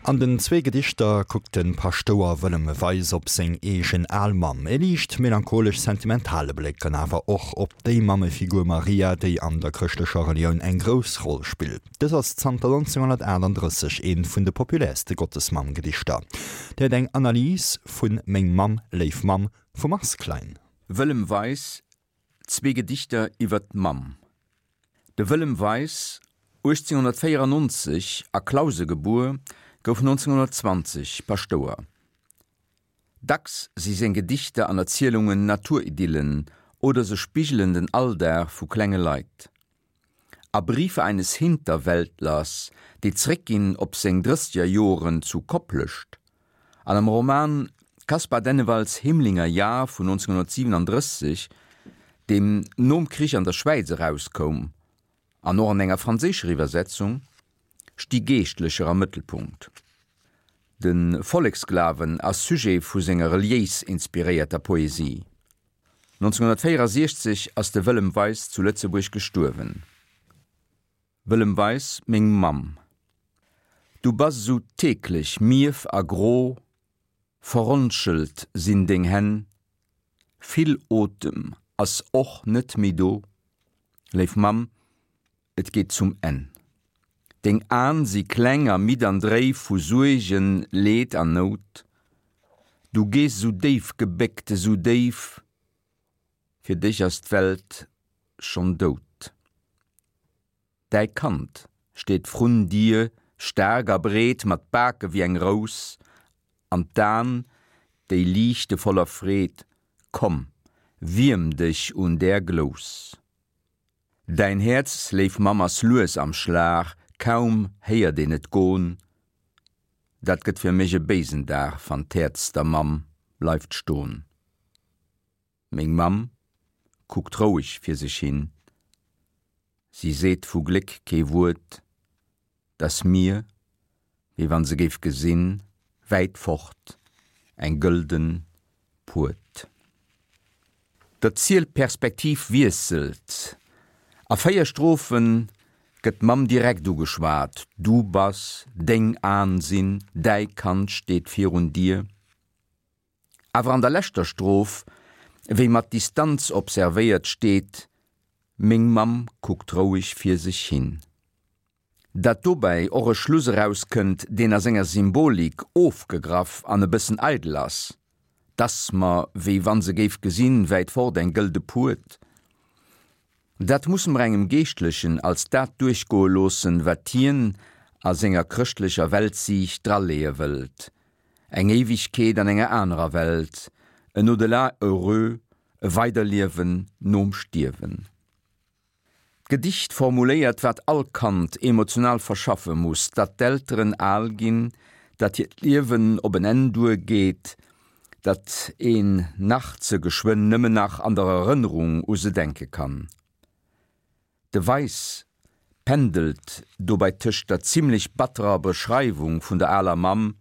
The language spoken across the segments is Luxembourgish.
An den zwee Gedichter kuckt de Paschtouer Wëllem Weis op seng eegen al Mamm, e liicht melancholesch-sentimentale Bléck, an awer och op déi Mammefigur Maria, déi an der chrëschtlecher Relioun eng grouss Roll spillt. Dës ass zanter 1938 eent vun de populärste Gottesmamm-Gedichter. Dir héiert eng Analys vu Meng Mamm, léif Mamm vum Mars Klein. Wëllem Weis, Zwee Gedichter iwwer d'Mamm. De Wëllem Weis, 1894 a Clause gebuer, gouf 1920 Paschtouer. Dacks si seng Gedichter an Erzielungen Naturidyllen oder se spigelen den Alldag vu klenge Leit. A Briefe eines Hinterwäldlers, déi zréckginn op seng Drëssegerjoren zu Koplescht, an am Roman Caspar Dennewalds Himlinger Jahr vun 1937, deem nom Krich an der Schwäiz erauskoum, an och an enger franséischer Iwwersetzung, sti Geeschtlecher am Mëttelpunkt. De Volleksglawen ass Sujet vu senger reliéis inspiréierter Poesie. 1964 ass de Wëllem Weis zu Lëtzebuerg gestuerwen. Wëllem Weis, Meng Mamm, du bass esou teeklech mierf a gro, verronschelt sinn deng Hänn, vill Otem ass och net méi do, léif Mamm, et geet zum Enn. Deng An si kleng a midd an dréif vu Suergen, Leed an Nout. Du gees esou déif gebéckt, esou déif, fir dech ass d'Welt schonn dout. Däi Kand steet vrun dir, staark a breet, mat Bake wéi eng Rous, an d'An, déi liichte voller Freed, komm, wierm dech un där Glous. Däin Häerz, léif Mamm, ass lues am Schlag, kaum héiert een et gon, dat gëtt fir mech e béisen Dag, wann d'Häerz der Mamm bleift ston. Meng Mamm kuckt roueg fir sech hin, si seet vu Gléck kee Wuert, 't ass mir, wéi wann se géif gesinn, wäit fort eng gëlden Puert. D'Erzielperspektiv wiesselt, a 4 Strophe gëtt d'Mamm direkt ugeschwat, Du bass, deng An sinn, däi Kand steet virun dir. Awer an der leschter Stroph, wéi mat Distanz observéiert, steet, Meng Mamm kuckt roueg fir sech hin. Datt dobäi och e Schluss erauskënnt, deen a senger Symbolik ofgegraff an e bëssen eidel ass, 't ass mer, wéi wann se géif gesinn, wäit fort eng gëlde Puert. Dat musse mer engem Geeschtlechen als dat duerchgoe loossen, wat hien a senger chrëschtlecher Weltsiicht draleeë wëllt, Eng Éiwegkeet an enger anerer Welt, en Au-delà heureux, e Weiderliewen nom Stierwen. D'Gedicht formuléiert, wat all Kand emotional verschaffe muss, datt d'Elteren al ginn, datt hiert Liewen op en Enn duergeet, datt een nach ze geschwënn nëmmen nach an der Erënnerung u se denke kann. De Weis pendelt dobäi tëscht der zimmlech batterer Beschreiwung vun der aler Mamm,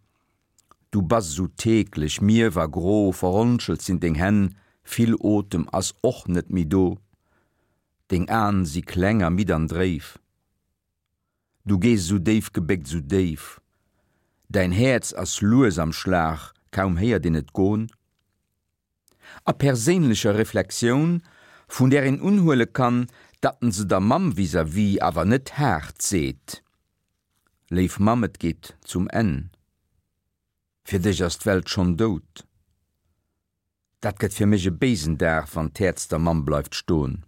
Du bass esou teeklech, mierf a gro, verronschelt sinn deng Hänn, vill Otem ass och net méi do, deng An si kleng a midd an dréif. Du gees esou déif gebéckt, esou déif, däin Häerz ass lues am Schlag, kaum héiert een et gon. A perséinlecher Reflexioun, vun där een unhuele kann, datt en se der Mamm vis-à-vis awer net haart seet, Léif Mamm, et geet zum Enn, fir dech ass d'Welt schonn dout. Dat gëtt fir mech e béisen Dag, wann d'Häerz der Mamm bleift ston.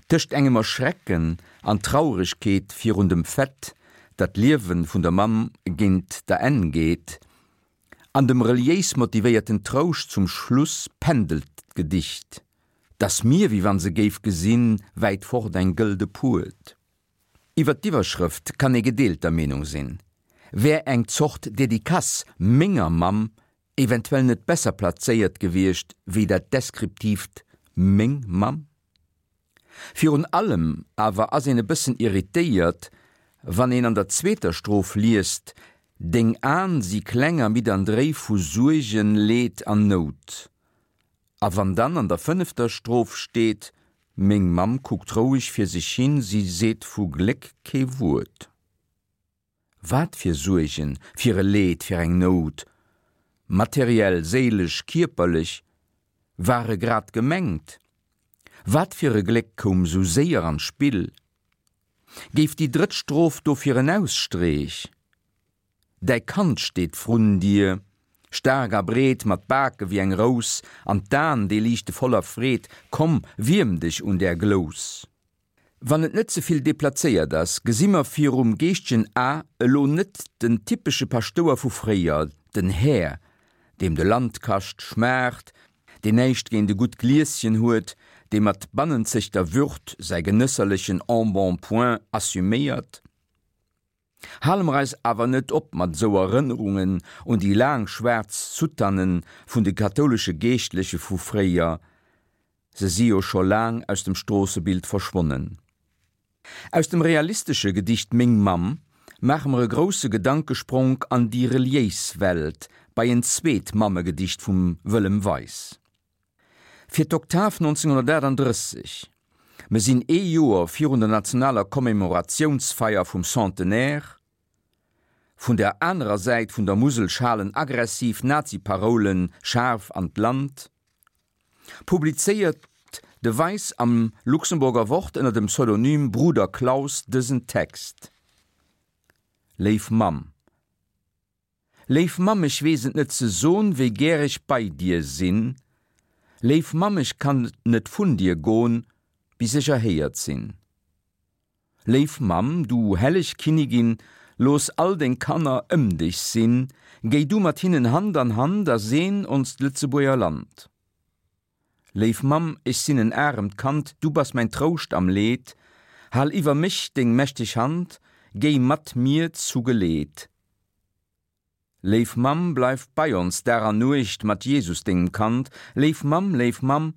Tëscht engem Erschrecken an Trauregkeet virun dem Fait, datt d'Liewe vun der Mamm géint der Enn geet, an dem reliéis motivéierten Trouscht zum Schluss pendelt d'Gedicht, 't ass mir, wéi wann se géif gesinn, wäit fort eng gëlde Puert. Iwwer d'Iwwerschrëft kann ee gedeelter Meenung sinn. Wär eng Zort Dedicace Menger Mamm eventuell net besser plazéiert gewiescht wéi dat deskriptiivt Meng Mamm? Virun allem awer ass een e bëssen irritéiert, wann een an der zweeter Stroph liest, Deng An si kleng a midd an dréif vu Suergen, Leed an Nout. A wann dann an der fënnefter Stroph steet, Meng Mamm kuckt roueg fir sech hin, si seet vu Gléck kee Wuert. Wat fir Suergen, fir e Leed, fir eng Nout, materiell, séilesch, kierperlech, ware grad gemengt? Wat fir e Gléck koum sou séier an d'Spill? Géif déi drëtt Stroph dofir en Ausstreech? Däi Kand steet vrun dir, staark a breet, mat Bake wéi eng Rous, an d'An, déi liichte voller Freed, komm, wierm dech un där Glous. Wann et net ze vill deplazéiert ass, gesi mer virum geeschtegen A elo net den typesche Paschtouer vu fréier, den Här, deem de Landkascht schmaacht, deen näischt géint e gutt Glieschen huet, dee mat bannenzegter Würd säi genësserlechen Embonpoint assuméiert. Hale mer eis awer net op mat esou Erënnerungen un déi laang schwaarz Soutanen vun de kathoulesche Geeschtleche vu fréier, Se si jo scho laang aus dem Stroossebild verschwonnen. Aus dem realistesche Gedicht Meng Mamm maache mer e grousse Gedankespronk an déi reliéis Welt, bei en zweet Mammegedicht vum Wëllem Weis. Fir d'Oktav 1938, mer sinn ee Joer virun der nationaler Commemoratiounsfeier vum Centenaire, Vun der anerer Säit vun der Musel schalen aggressiv Nazi-Paroule schaarf an d'Land. Publizéiert de Weis am Luxemburger Wort ënner dem Pseudonym Bruder Klaus dësen Text, Léif Mamm. Léif Mamm, ech weess et net ze son, wéi gär ech bei dir sinn. Léif Mamm, ech kann net vun dir gon, bis ech erhéiert sinn. Léif Mamm, du helleg Kinnigin, looss all deng Kanner ëm dech sinn, géi du mat hinnen Hand an Hand a seen onst Lëtzebuerger Land. Léif Mamm, ech sinn en aremt Kand, du bass mäin Trouscht am Leed, hal iwwer mech deng mächteg Hand, géi mat mir zu Geleed. Léif Mamm, bleif bei ons Dag an Nuecht mat Jesus, dengem Kand. Léif Mamm, léif Mamm,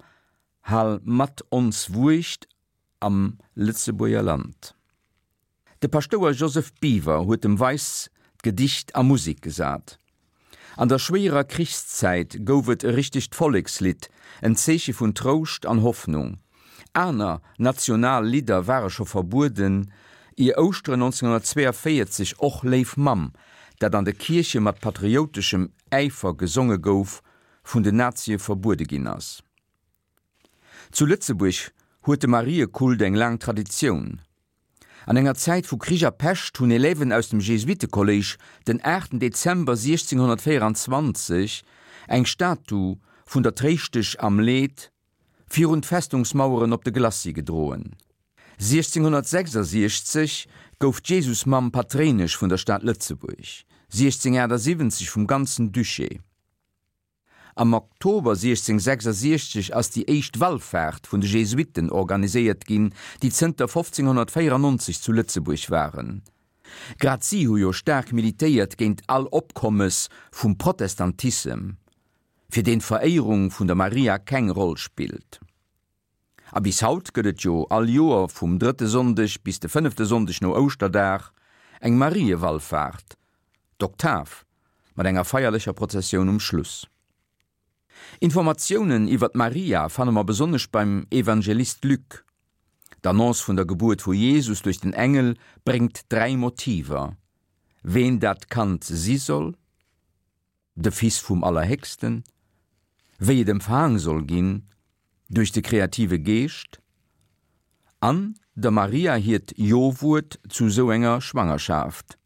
hal mat ons Wuecht am Lëtzebuerger Land. De Paschtouer Joseph Biwer huet dem Weis d'Gedicht a Musik gesat. An der schwéierer Krichszäit gouf et e richtegt Vollekslidd, en Zeeche vun Trouscht an Hoffnung. Aner national Lidder ware scho verbueden, ier Ouschteren 1942 och Léif Mamm, dat an de Kierche mat patriouteschem Äifer gesonge gouf, vun den Nazie verbuede ginn ass. Zu Lëtzebuerg huet de Mariekult eng laang Traditioun. An enger Zäit vu Krich a Pescht hunn Élèven aus dem Jesuitekolléisch den 8 Dezember 1624 eng Statu vun der Tréischtesch am Leed virun d'Festungsmaueren op de Glacis gedroen. 1666 gouf d'Jesusmamm Patréinesch vun der Stad Lëtzebuerg, 1678 vum ganzen Duché. Am Oktober 1666 ass déi éischt Wallfaart vun de Jesuitten organiséiert ginn, déi zënter 1594 zu Lëtzebuerg waren. Grad si hu jo staark militéiert géint all Opkommes vum Protestantissem, fir deen d'Veréierung vun der Maria keng Roll spillt. A bis haut gëtt et jo all Joer vum drëtte Sonndeg bis de fënnefte Sonndeg no Ouschterdag eng Mariewallfaart, d'Oktav, mat enger feierlecher Prozessioun um Schluss. Informatiounen iwwer d'Maria fanne mer besonnesch beim Evangelist Luc. D'Annonce vun der Gebuert vu Jesus duerch den Engel bréngt 3 Motiver, ween dat Kand si soll, de Fils vum Allerhéchsten, wéi et empfaang soll ginn, duerch de kreative Geescht, an der Maria hiert Jo-Wuert zu sou enger Schwangerschaft.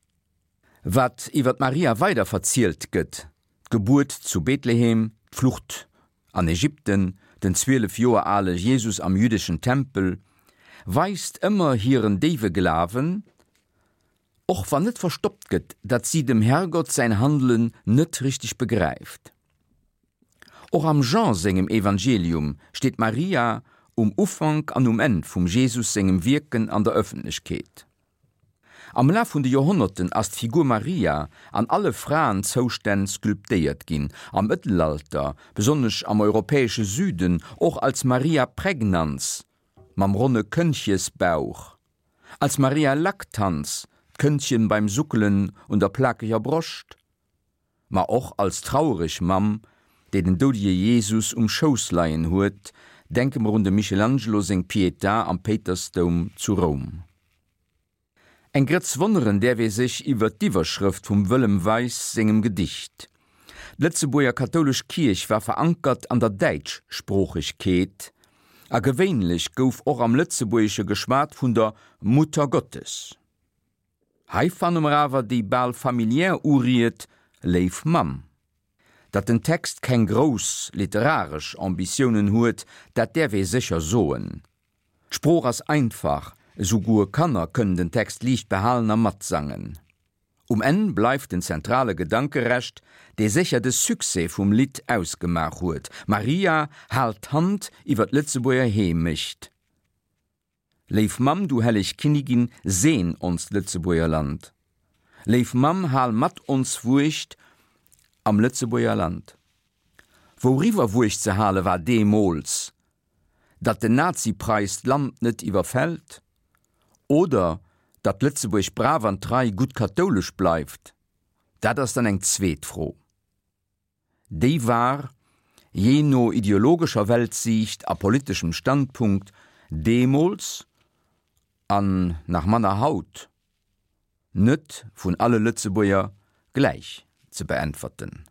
Wat iwwer d'Maria weider verzielt gëtt, d'Gebuert zu Bethlehem, d'Flucht an Ägypten, den 12 Joer ale Jesus am jüddeschen Tempel, weist ëmmer hiren déiwe Glawen, Och wann net verstoppt gëtt, datt si dem Herrgott säin Handelen net richteg begräift. Och am Jean sengem Evangelium steet d'Maria um Ufank an um Enn vum Jesus sengem Wierken an der Ëffentlechkeet. Am Laf vun de Joerhonnerten ass d'Figur Maria an alle Fraenzoustänn sculptéiert ginn, am Mëttelalter, besonnesch am europäesche Süden, och als Maria Pregnans mam ronne Këndchesbauch. Als Maria Lactans, d'Këndchen beim Suckelen un der plakeger Broscht, ma och als trauereg Mamm, déi den doudege Jesus um Schouss leien huet, denke mer un dem Michelangelo seng Pietà am Péitersdoum zu Roum. Eng Grëtz wonneren däerf ee sech iwwer d'Iwwerschrëft vum Wëllem Weis sengem Gedicht. D'Lëtzebuerger kathoulesch Kierch war verankert an der Däitschsproochegkeet, a gewéinlech gouf och am Lëtzebuergesche geschwat vun der Muttergottes. Hei fanne mer awer déi bal familiär Uried Léif Mamm. Datt den Text keng grouss literaresch Ambitiounen huet, dat däerf ee sécher soen. D'Sprooch ass einfach, esouguer Kanner kënnen den Text liicht behalen a matsangen. Um Enn bleift den zentrale Gedanke Rescht, dee sécher de Succès vum Lidd ausgemaach huet, Maria, hal d'Hand iwwer d'Lëtzebuerger Heemecht. Léif Mamm, du helleg Kinnigin, seen onst Lëtzebuerger Land. Léif Mamm, hal mat ons Wuecht am Lëtzebuerger Land. Wouriwwer Wuecht ze hale war deemools? Datt den Nazi-Preis d'Land net iwwerfält? Oder datt Lëtzebuerg brav an trei gutt kathoulesch bleift? Dat ass dann eng zweet Fro. Déi war, jee no ideologescher Weltsiicht a politeschem Standpunkt, deemools, an nach manner haut, net vun alle Lëtzebuerger gläich ze beäntwerten.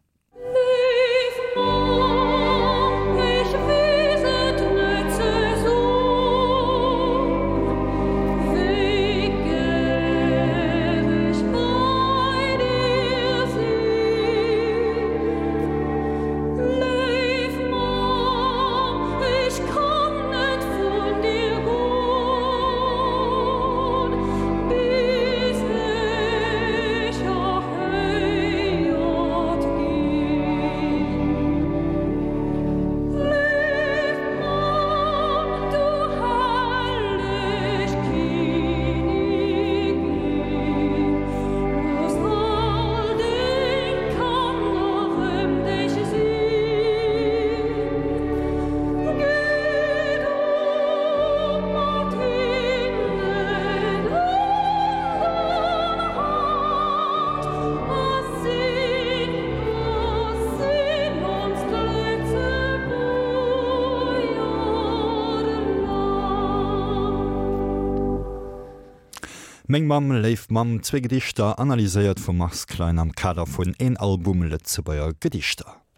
Meng Mamm, léif Mamm, zwee Gedichter, analyséiert vum Mars Klein am Kader vun Een Album Lëtzebuerger Gedichter.